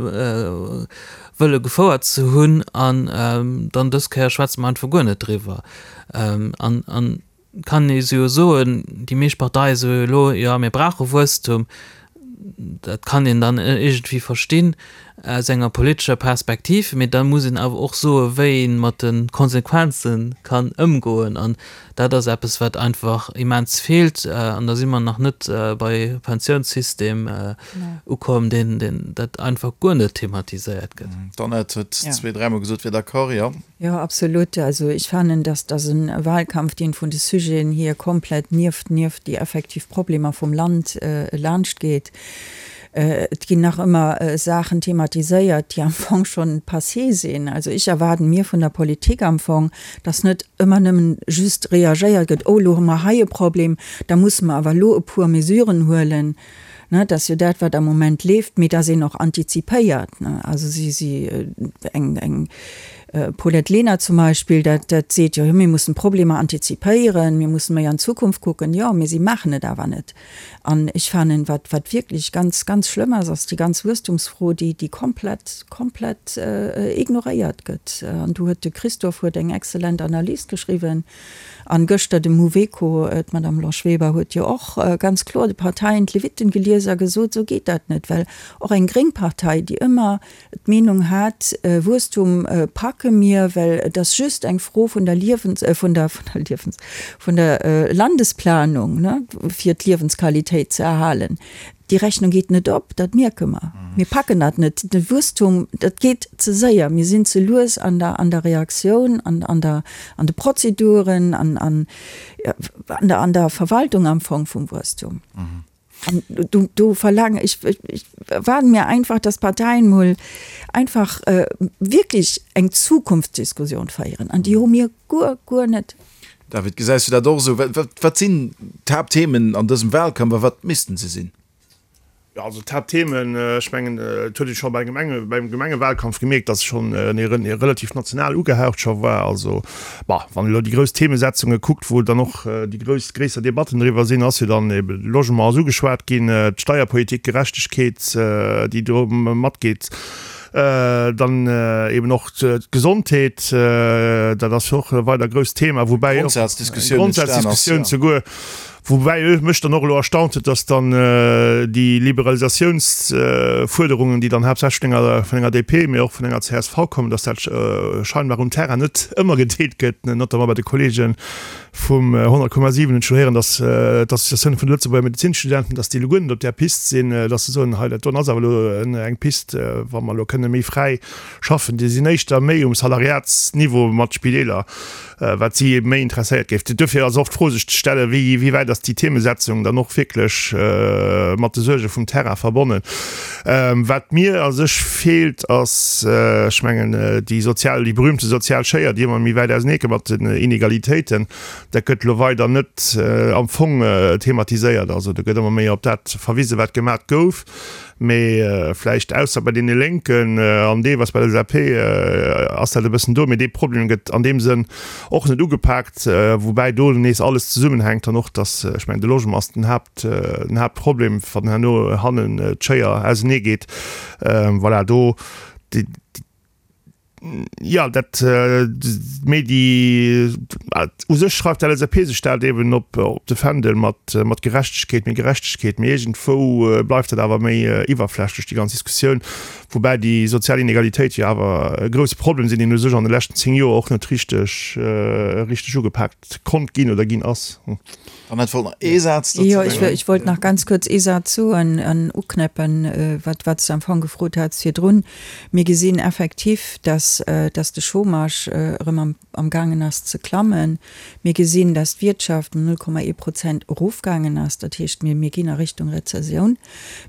wëlle gefouert ze hunn. An dann dës Kéier schwätze mer einfach guer net driwwer. An kann ee jo soen, déi meescht Parteie soe jo elo, jo mir brauche Wuesstum. Dat kann een dann iergendwéi verstinn aus enger politescher Perspektiv, mee da muss een awer och soe wéi ee mat de Konsequenze kann ëmgoen. An dat ass eppes wat einfach immens feelt. An da si mer nach net bei Pensiounssystem ukomm, deen dat einfach guer net thematiséiert gëtt. D'Annette huet zweet, dräimol gesot, wier d'accord, jo. Jo, absolut. Also ech fannen, dass dass e Wahlkampf, deen vun de Sujeten hier komplett nieft nieft déi effektiv Problemer vum Land laanscht geet. Et ginn nach ëmmer Saachen thematiséiert, déi am Fong schonn passé sinn. Also ech erwaarden mir vun der Politik am Fong, dass net ëmmer nëmmen just reagéiert gëtt, oh elo hu mer hei e Problem, da musse mer awer elo e puer Mesuren huelen. Ne, dat ass jo dat, wat am Moment leeft, mee dass een och antizipéiert. Ne, also si, si, eng, eng Paulette Lenert zum Beispill, dat, dat seet jo, mir mussen d'Problemer antizipéieren, mir mussen méi an d'Zukunft kucken. Jo, mee si maachen et awer net. An ech fannen, wat, wat wierklech ganz, ganz schlëmm ass, ass déi ganz Wuesstumsfro, déi, déi komplett, komplett ignoréiert gëtt. An do huet de Christophe huet eng exzellent Analys geschriwwen. An gëschter de Mouveco, d'Madame Blanche Weber huet jo och ganz kloer de Parteien d'Levitten gelies a gesot, esou geet dat net, well och eng gréng Partei, déi ëmmer d'Meenung hat, Wuesstum packe mir, well et ass just eng Fro vun der Liewens-, vun der, vun der Liewens-, vun der Landesplanung, ne, fir d'Liewensqualitéit ze erhalen. Déi Rechnung geet net op, dat mierke mer. Mir packen dat net. De Wuesstum, dat geet ze séier. Mir sinn ze lues an der, an der Reaktioun, an, an der, an de Prozeduren, an, an, an der, an der Verwaltung am Fong vum Wuesstum. An do, do verlaange ech, ech erwaarde mir einfach, dass d'Parteien mol einfach wierklech eng Zukunftsdiskussion féieren. An déi hu mir guer, guer net. David, gesäis du dat och esou? Wat sinn d'Haaptthemen an dësem Wahlkampf a wat missten se sinn? Jo, also d'Haaptthemen, ech mengen, et huet ee scho bei Gemenge, beim Gemengewahlkampf gemierkt, datt schonn e relativ national ugehaucht scho war. Also, bah, wann ee elo déi grouss Themesetzunge kuckt, wou dann och déi grouss, gréisser Debatten driwwer sinn, ass jo dann ebe Logement ass ugeschwat ginn, d'Steierpolitik, Gerechtegkeet, déi do matgeet. Dann eben och d'Gesondheet, dat ass jo och e weider grousst Thema, woubäi och Grondsazdiskussioun souguer, woubäi mech dann och elo erstaunt huet, datt dann déi Liberalisatiounsfuerderungen, déi dann haaptsächlech vun enger, vun enger DP, mee och vun enger csv kommen, datt dat scheinbar um Terrain net ëmmer gedeelt gëtt, notamment bei de Kollegen Vum 100,7 hunn ech scho héieren, datt d'Associatioun vun de Lëtzebuerger Medezinstudenten, datt déi elo guer net op där Pist sinn, datt se soen, hei dat doen ass awer elo eng Pist, wa mer elo kënne méi fräi schaffen. Déi sinn éischter méi um Salariatsniveau mat Spideeler, wat si méi interesséiert géif. Duerfir ass och d'Fro sech ze stellen, wéi wéi wäit ass déi Themesetzung dann och wierklech mat de Suerge vum Terrain verbonnen. Wat mir a sech feelt, ass, ech mengen, déi sozial, déi berühmte sozial Schéier, déi ëmmer méi wäit auseneegeet mat den Inegalitéiten. Dat gëtt elo weider net am Fong thematiséiert. Also do gëtt ëmmer méi op dat verwisen, wat gemat gouf. Mee vläicht ausser bei deene Lénken an deelweis bei der LSAP ass dat e bëssen do. Mee dee Problem gëtt an deem Sënn och net ugepaakt, woubäi do nees alles zesummenhänkt an och, dass, ech mengen, de Logement ass den Haapt, den Haaptproblem, wann herno hannen d'Schéier ausenee geet. Voilà, do déi. Jo, dat, mee déi, u sech schreift d'LSAP sech dat eben op de Fändel mat Gerechtegkeet, méi Gerechtegkeet, mee iergendwou bleift dat awer méi iwwerflächlech, déi ganz Diskussioun, woubäi déi sozial Inegalitéit jo awer e grousse Problem sinn, deen u sech an de leschten 10 Joer och net richteg, richteg ugepaakt konnt ginn oder ginn ass. Annette wollt nach ee Saz dozou Jo, ech wollt nach ganz kuerz ee Saz soen an uknäppen, wat wat s de am Fong gefrot hats virdrun. Mir gesinn effektiv, dass dass de Chômage erëm am amgaangen ass ze klammen. Mir gesinn, dass d'Wirtschaft ëm 0,1 Prozent erofgaangen ass. Dat heescht, mir mir ginn a Richtung Rezessioun.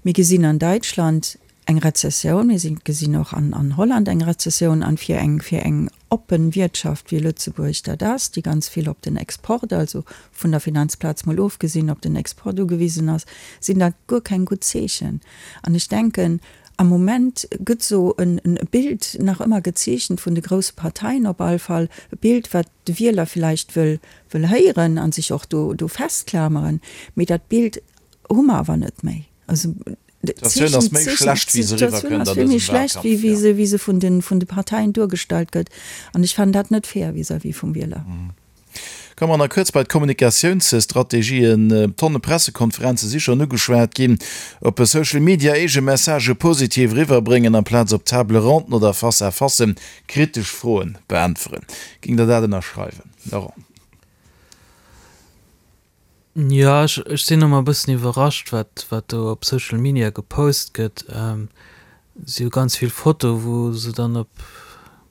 Mir gesinn an Däitschland eng Rezessioun, mir sinn gesinn och an an Holland eng Rezessioun an fir eng fir eng oppen Wiertschaft wéi Lëtzebuerg dat ass, déi ganz vill op den Export, also vun der Finanzplaz mol ofgesinn, op den Export ugewisen ass, sinn dat guer keng gutt Zeechen. An ech denken, am Moment gëtt esou en e Bild nach ëmmer gezeechent vun de grousse Parteien op all Fall, e Bild wat de Wieler villäicht wëll wëll héieren a sech och do do festklameren, mee dat Bild hu mer awer net méi. Also D'Situatioun ass méi schlecht, wéi se eriwwerkënnt an dësem Wahlkampf, jo. Wéi se vun de Parteien duergestallt gëtt. An ech fannen dat net fair vis-à-vis vum Wieler. Komme mer nach kuerz bei d'Kommunikatiounsstrategien. Tonne Pressekonferenze si schonn ugeschwat ginn. Op Social Media eege Messagë positiv eriwwerbréngen, amplaz op Table ronden oder Face-à-facen kritesch Froen beäntweren. Géingt Der dat ënnerschreiwen, Laurent? Jo, ech ech sinn ëmmer e bëssen iwwerrascht, wat wat do op Social Media gepost gëtt. Et si jo ganz vill Fotoe wou se dann op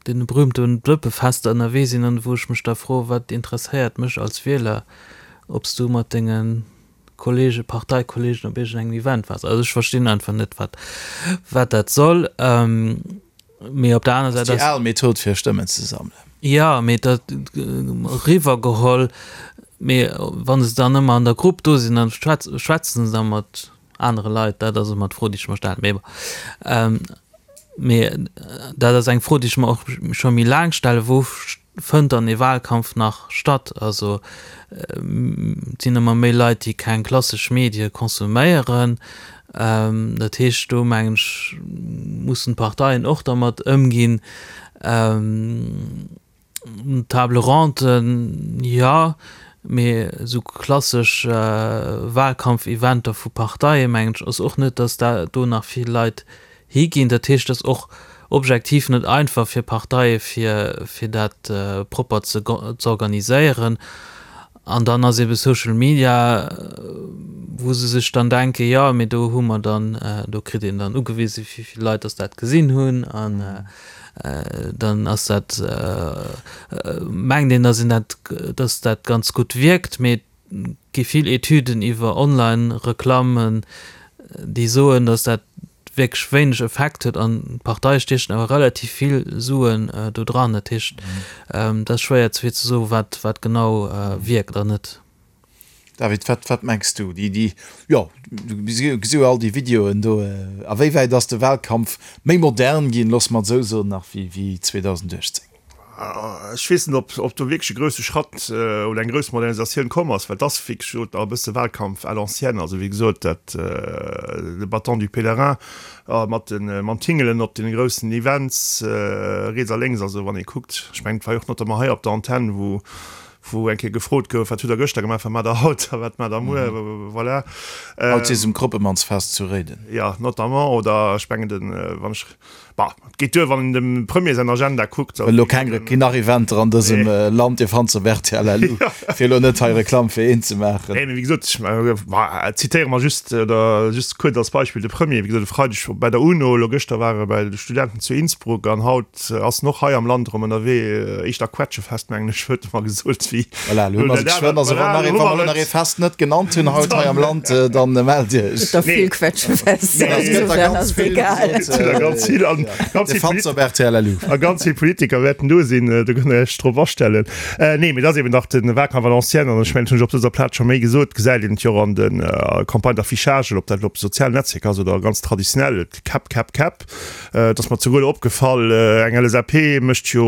deene berühmten Dëppefester ënnerwee sinn an wou ech mech da froen, wat interesséiert mech als Wieler, ob s du mat denge Kollege, Parteikollegen op iergendengem Event waars. Also ech verstinn einfach net, wat wat dat soll. Mee op der aner Säit ass. Déi al Method fir Stëmmen ze sammelen. Jo, mee dat eriwwergeholl. Mee wa se dann ëmmer an der Grupp do sinn, dann schwätzen se da mat anere Leit. Dat ass ëmmer d'Fro, déi ech mer stellen. Mee bon. Mee dat ass eng Fro, déi ech mer och scho méi laang stellen, Wou fënnt dann ee Wahlkampf nach statt? Also et sinn ëmmer méi Leit, déi keng klassesch Medie konsuméieren. Dat heescht, do mengen ech, mussen d'Parteien och dermat ëmginn. Table ronden, jo, mee esou klassesch Wahlkampfeventer vu Parteie mengen ech ass och net, datt da do nach vill Leit higinn. Dat heescht, et ass och objektiv net einfach fir Parteie fir fir dat propper ze z'organiséieren. An dann ass ebe Social Media, wou se sech dann denken, jo mee do hu mer dann, do kritt een dann ugewise wéi vill Leit datt dat gesinn hunn an dann ass dat, mengt een, datt een dat, datt dat ganz gutt wierkt. Mee gi vill Etüden iwwer Online-Reklammen, déi soen, datt dat wierklech wéineg Effekt huet an d'Parteie stiechen awer relativ vill Suen do dran. Dat heescht, et ass schwéier fir ze soen, wat, wat genau wierkt an net. David, wat, wat mengs du? Déi, déi, jo, du gesi jo all déi Videoen do. A wéi wäit ass de Wahlkampf méi modern ginn, loosse mer et esou soen, nach wéi, wéi 2018? Ech weess net, ob do wierklech e grousse Schratt oder eng grouss Modernisatioun komm ass, well et ass, wéi gesot, nach e bësse Wahlkampf à l'ancienne. Also, wéi gesot, dat, de Bâton du pèlerin mat de, mam Tingelen op deene groussen Events riets a lénks. Also, wann ee kuckt, ech mengen, et war jo och notamment hei op der Antenn, wou, wou eng Kéier gefrot gouf, Wat hutt Der gëschter gemaach, wat maacht Der haut a wat maacht Der muer? Voilà. Haut si se um Kroppemannsfest zu Réiden. Jo, notamment. Oder ech mengen, den, wann ech. Bah, et geet duer, wann een dem Premier säin Agenda kuckt. Well elo keng keen nach Eventer an dësem Land, Dir fannt se op rtl LU, fir elo net hei Reklamm fir een ze maachen. Nee, mee wéi gesot, ech bah, zitéiere mer just, oder just kuerz als Beispill de Premier, wéi gesot, e Freideg bei der UNO, elo gëschter war e bei de Studenten zu Innsbruck an haut ass en och hei am Land erëm ënnerwee, éischter Quetschefest, mengen ech, huet e mer gesot, wéi. Voilà, elo hu mer se geschwënn. Also wann nach ee, wa mer elo nach ee Fest net genannt hunn haut hei am Land, dann mellt Iech. Et gëtt der vill Quetschefester, insofern ass et egal. Et gëtt der ganz vill an ganz vill Fans op rtl LU. A ganz vill Politiker wäerten do sinn, do kënnt Der Iech drop astellen. Nee, mee et ass eben nach de Wahlkampf à l'ancienne an ech mengen, dat hunn ech op dëser Plaz scho méi gesot, gesäit een et jo och an de Campagnes d'affichage, ob dat elo op de sozialen Netzwierker ass oder ganz traditionell, et Käpp, Käpp, Käpp. Et ass mer zeguer elo opgefall, eng LSAP mécht jo,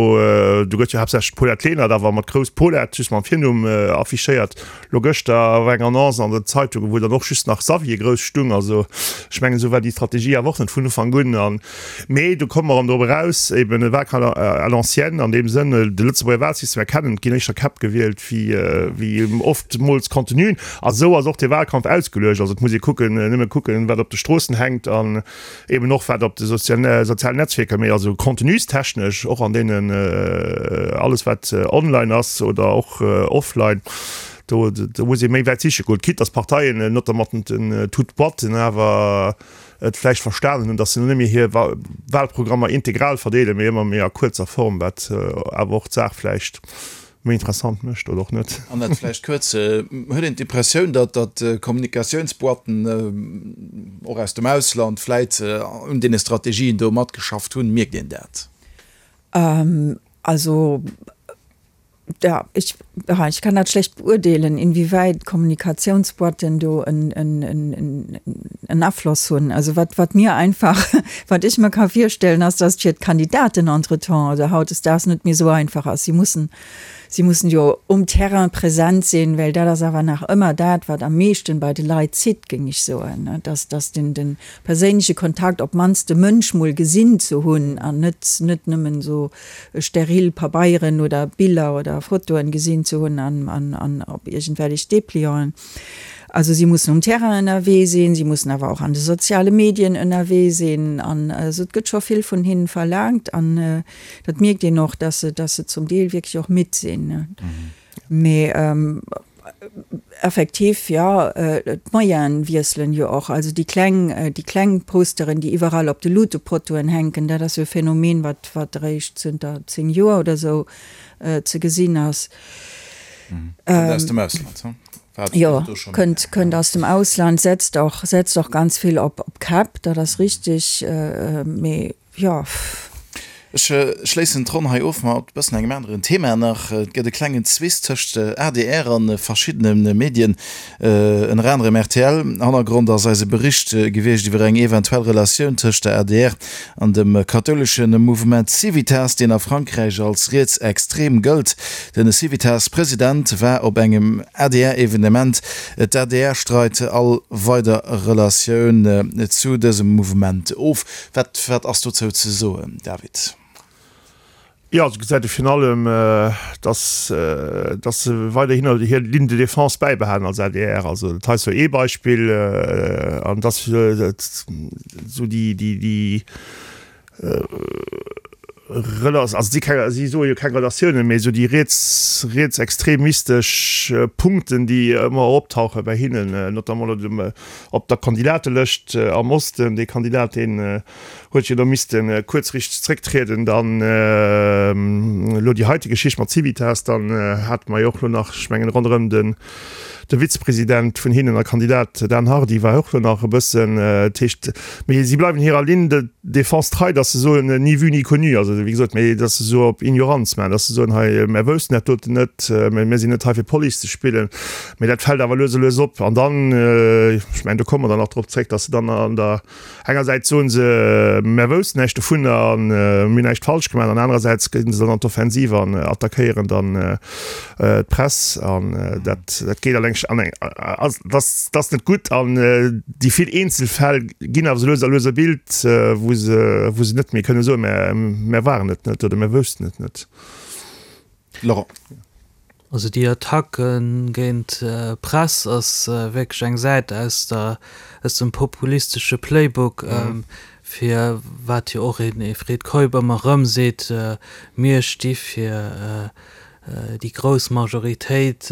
do gëtt jo haaptsächlech d'Paulette Lenert awer mat grouss Paulette. just mam Virnumm affichéiert. Lo gëschter war eng Annonce an den Zeitungen, wou dann och just nach Xavier grouss stung. Also ech mengen, esou war déi Strategie awer och net vun Ufank un. An, mee do komme mer erëm drop eraus, eben e Wahlkampf à l'ancienne an deem Sënn, de Lëtzebuerger Wahlsystem erkennen, et ginn éischter Käpp gewielt wéi, wéi oftmools Contenuen. A sou ass och dee Wahlkampf ausgeluecht. Also et muss ee kucken, nëmme kucken, wat op de Stroossen hänkt an eben och wat op de sozialen Netzwierker, mee also contenustechnesch och an deenen alles wat online ass oder och offline, do do muss ee méi wäit siche goen, quitte dass d'Parteien, notamment den toutes boîtes, awer et vläicht verstanen hunn, dass se net méi hir Wahlprogrammer integral verdeelen, mee ëmmer méi a kuerzer Form, wat awer och d'Saach vläicht méi interessant mécht oder och net. An dat vläicht kuerz, Huet een d'Impressioun, datt datt Kommunikatiounsboîten och aus dem Ausland vläit un deene Strategien do matgeschafft hunn? Mierkt een dat? Also, ja, ich, ich kann dat schlecht beurteelen, inwieweit Kommunikatiounsboîten do en, en, en, en Afloss hunn. Also wat, wat mir einfach, wat ech mir ka virstellen, ass, dass et fir d'Kandidaten entretemps oder hautdesdaags net méi esou einfach ass. Si mussen, si mussen jo um Terrain präsent sinn, well dat ass awer nach ëmmer dat, wat am meeschten bei de Leit zitt, géing ech soen, dass, dass den, den perséinleche Kontakt, op d'mannst de Mënsch mol gesinn ze hunn an net, net nëmmen esou steril Pabeieren oder Biller oder Fotoen gesinn ze hunn an, an, an op iergendwelleg Deplianten. Also si mussen um Terrain ënnerwee sinn, si mussen awer och an de soziale Medien ënnerwee sinn. An also et gëtt scho vill vun hinnen verlaangt an dat mierkt een och, dass se, dass se zum Deel wierklech och midd sinn. Mee effektiv, jo, d'Moyene wiesselen jo och. Also déi kleng, déi kleng Posteren, déi iwwerall op de Luutepotoen hänken, dat ass jo e Phänomen, wat, wat eréischt zënter 10 Joer oder esou ze gesinn ass. Kënnt aus dem Ausland, hm? Jo, kënnt, kënnt aus dem Ausland, setzt och, setzt och ganz vill op, op Käpp, dat ass richtig, mee jo. Ech schléissen d'Ronn hei of mat e bëssen engem aneren Thema nach. Et gëtt e klengen Zwist tëscht adr a verschiddene Medien, ënner anerem rtl. Hannergrond ass eise Bericht gewiescht iwwer eng eventuell Relatioun tëscht der adr an dem kathoulesche Mouvement Civitas, deen a Frankräich als rietsextrem gëllt. Den Civitas-President war op engem ADR-Evenement. D'ADR streit all weider Relatioun zu dësem Mouvement of. Wat wat ass dozou ze soen, David? Jo, also gesäit ee virun allem, datt datt se weiderhin hir Ligne de défense bäibehalen als adr. Also dat hei ass jo ee Beispill an datt esou déi déi déi Rela also si keng si soe jo keng Relatiounen, mee esou déi riets rietsextremistesch Punkten, déi ëmmer optauche bei hinnen, notamment elo dem op der Kandidatelëscht am Osten, dee Kandidat deen huet jo do misste kuerzrichteg zrécktrieden, dann elo déi heite Geschicht mat Civitas, dann hate mer jo och elo nach, ech mengen ronderëm den de Vizepresident vun hinnen a Kandidat Dan Hardy war och elo nach e bëssen, dat heescht, mee si bleiwen hirer Ligne de défense trei, datt se soen, ni vu ni connu, also wéi gesot, mee datt se esou op Ignoranz maachen, datt se soen, hei mär woussten dat doten net, mär sinn net hei fir Police ze spillen, mee dat fält awer lues a lues op an dann, ech mengen do komme mer dann nach drop zréck, datt se dann an der Engersäits soen se, mär woussten näischt dovunner an mir hunn näischt falsch gemaach, an anerersäits ginn se dann an d'Offensiv an attackéieren dann d'Press an dat dat geet alleng an eng ass dat ass net gutt an déi vill Eenzelfäll ginn awer sou lues a lues e Bild, wou se wou se net méi kënne soen, mär mär waren et net oder mär woussten et net. Laurent. Also déi Attacke géint d'Press ass wierklech eng Säit aus der, aus dem populistesche Playbook, fir wat jo och een Fred Keup ëmmer erëm seet, mir sti fir déi grouss Majoritéit,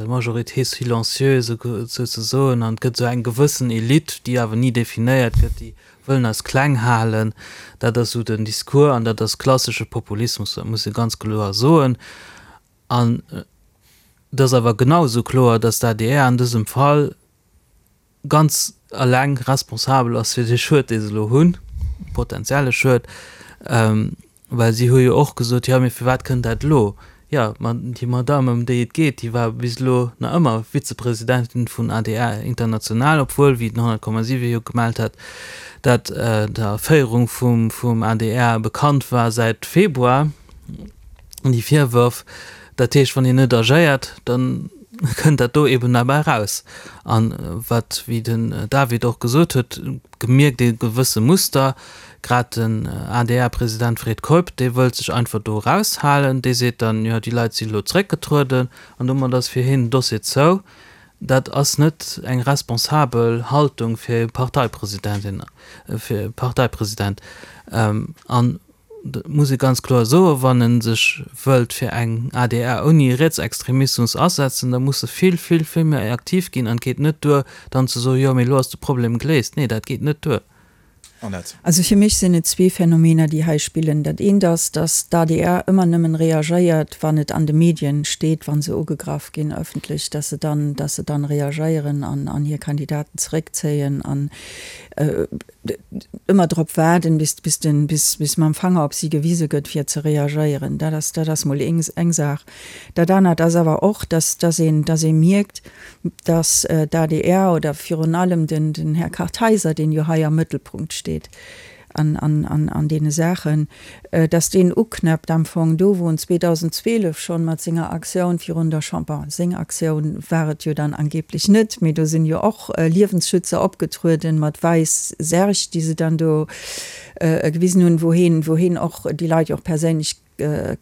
majorité silencieuse souzesoen, an et gëtt esou eng gewëssen Elite, déi awer ni definéiert gëtt, déi wëllen eis kleng halen. Dat ass esou den Discours an dat ass klassesche Populismus, dat muss ee ganz kloer soen. An et ass awer genau esou kloer, datt d'ADR an dësem Fall ganz eleng responsabel ass fir dee Schued, dee se elo hunn, potenzielle Schued. Well si hu jo och gesot, jo, mee firwat kënnt dat elo? Jo, ma déi Madamm, ëm déi et geet, déi war bis elo nach ëmmer Vizepresidentin vun adr International, obwuel, wéi den 100,7 jo gemellt hat, dat der Féierung vum adr bekannt war säit Februar, déi Virwërf. Dat heescht, wann een net agéiert, da kënnt dat do eben derbäi eraus. A wat, wéi den David och gesot huet, gemierkt ee gewësse Muster, grad den ADR-President Fred Keup, dee wëllt sech einfach do eraushalen, dee seet dann, jo déi Leit si elo zréckgetrueden an domat ass fir hien den Dossier zou. Dat ass net eng responsabel Haltung fir e Parteipresidentin, fir e Parteipresident. An dat muss ee ganz kloer soen, wann e sech wëllt fir eng adr ouni Rietsextremismus asetzen, da muss e vill, vill, vill méi aktiv ginn. An et geet net duer, dann ze soen, jo, mee elo ass de Problem geléist. Nee, dat geet net duer. Annette. Also fir mech sinn et zwee Phänomener, déi hei spillen. Dat eent ass, datt d'ADR ëmmer nëmmen reagéiert, wann et an de Medien steet, wa se ugegraff ginn ëffentlech, datt se dann, datt se dann reagéieren an, an hir Kandidaten zeréckzéien an ëmmer drop waarden, bis, bis den, bis, bis mam Fanger op si gewise gëtt, fir ze reagéieren. Dat ass, dat ass mol eng, eng Saach. Dat anert ass awer och, dass, dass een, dass ee mierkt, dass d'ADR oder virun allem den, den Här Kartheiser, deen jo hei am Mëttelpunkt steet an, an, an, an deene Saachen, dass deen uknäppt am Fong do, wou en 2012 schonn mat senger Aktioun virun der Chamber, bon, seng Aktioun war et jo dann angeblech net, mee do sinn jo och Liewensschützer opgetrueden mat wäiss Särg, déi se dann do gewisen hunn, wou heen, wou heen och déi Leit jo och perséinlech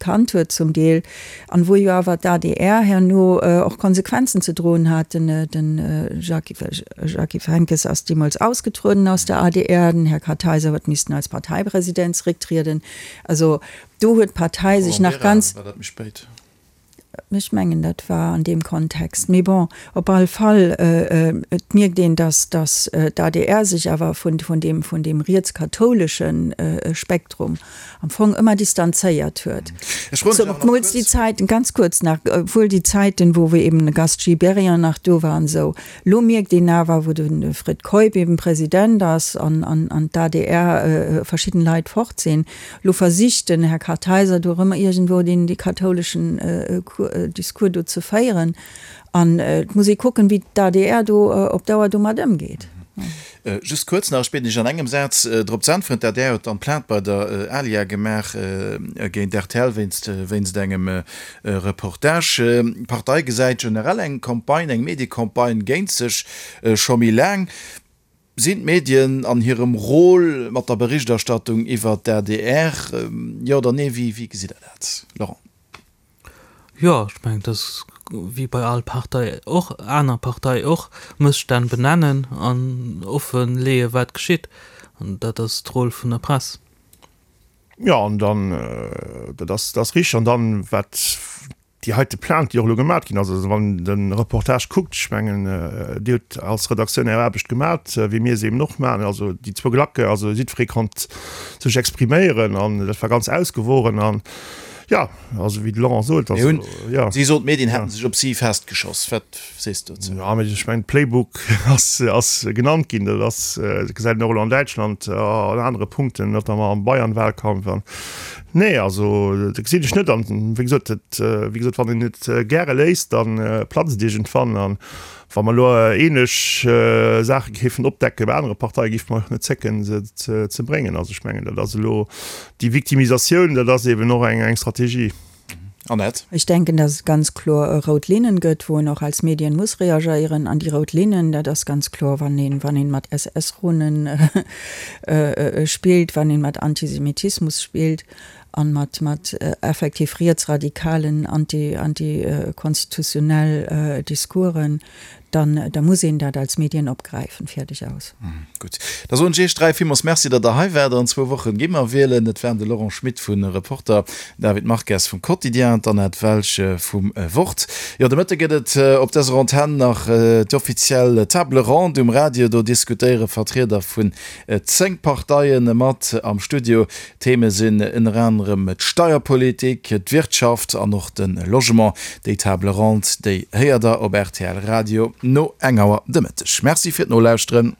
kannt huet zum Deel, an wou jo awer d'ADR herno och Konsequenzen ze droen hat. Den den Jacques Henckes ass deemools ausgetrueden aus der ADR, den Här Kartheiser huet missten als Parteipresident zrécktrieden. Also do huet d'Partei sech nach ganz. War dat méi spéit? Ech mengen, dat war an deem Kontext. Mee bon, op all Fall, et mierkt een, datt, datt d'ADR sech awer vun, vun deem, vun deem rietskathoulesche Spektrum am Fong ëmmer distanzéiert huet. Ech froen dech awer nach Zemools déi kuerz. Zäiten, ganz kuerz nach, obwuel déi Zäiten, wou eben de Gast Gibéryen nach do war an esou. Lo mierkt een awer, wou de Fred Keup eben President ass an, an, an d'ADR verschidden Leit fort sinn, Lo versicht den Här Kartheiser do erëm iergendwou deen dee kathouleschen Discours do ze féieren. An et muss ee kucken, wéi d'ADR do op Dauer domat ëmgeet. Just kuerz nach, ech bieden Iech an engem Saz drop ze äntweren. D'ADR huet dann Plainte bei der ALIA gemaach géint rtl wéinst wéinst engem Reportage. D'Partei gesäit generell eng Campagne, eng Mediecampagne géint sech scho méi laang. Sinn d'Medien an hirem Rôle mat der Berichterstattung iwwert d'ADR? Jo oder nee, wéi gesitt Der dat, Laurent? Jo, ech mengen, et ass wéi bei all Partei och, aner Partei och, Mësstänn benennen an offen leeë wat geschitt. An dat ass d'Rôle vun der Press. Jo, an dann, dat ass, dat ass richteg. An dann, wat déi heite Plainte, déi och elo gemat ginn ass, also wann een de Reportage kuckt, ech mengen, Dir hutt als Redaktioun Är Aarbecht gemat, wéi mir se eben och maachen, also déi zwou Glacke, also jiddweree konnt sech expriméieren an dat war ganz ausgewogen an, jo, also wéi de Laurent sot, also, jo. Si sot, d'Medien hätten sech op si festgeschoss. Wat sees de dozou? Jo, mee ech mengen, Playbook ass, ass genannt ginn, dat ass, dat gesäit een och elo an Däitschland an anere Punkten, notamment am Bayern-Wahlkampf an, Nee, also dat gesinn ech net. An wéi gesot, dat, wéi gesot, wann een et gäre léisst, da platzt et iergendwann. An wa mer elo ähnlech Saache géifen opdecke bei anere Parteien, géife mer och net zécken, se ze bréngen. Also ech mengen, dat ass elo déi Victimisatioun, dat ass eeben och eng Strategie. Annette. Ech denken, dass et ganz kloer rout Linnen gëtt, wou een och als Medien muss reagéieren. An déi rout Linnen, dat ass ganz kloer, wann een, wann een mat SS-Runen spillt, wann een mat Antisemitismus spillt an mat, mat effektiv rietsradikalen, anti, antikonstitutionell Discoursen. Dann, da muss een dat als Medien opgräifen. Fäerdeg aus. Gutt, da soen ech Iech 3 villmools Merci, datt Der hei waart. An zwou Wochen gi mer wielen. Et waren de Laurent Schmit vu Reporter, David Marques vum Quotidien, d'Annette Welsch vum Wort. Jo, de Mëtte gëtt et op dëser Antenn nach d'offiziell Table ronde um Radio. Do diskutéiere Vertrieder vun 10 Parteie mat am Studio. Theme sinn ënner anerem d'Steierpolitik, d'Wirtschaft an och de Logement. Déi Table ronde, déi héiert der op rtl Radio no eng Auer de Mëtteg. Merci fir d'Nolauschteren.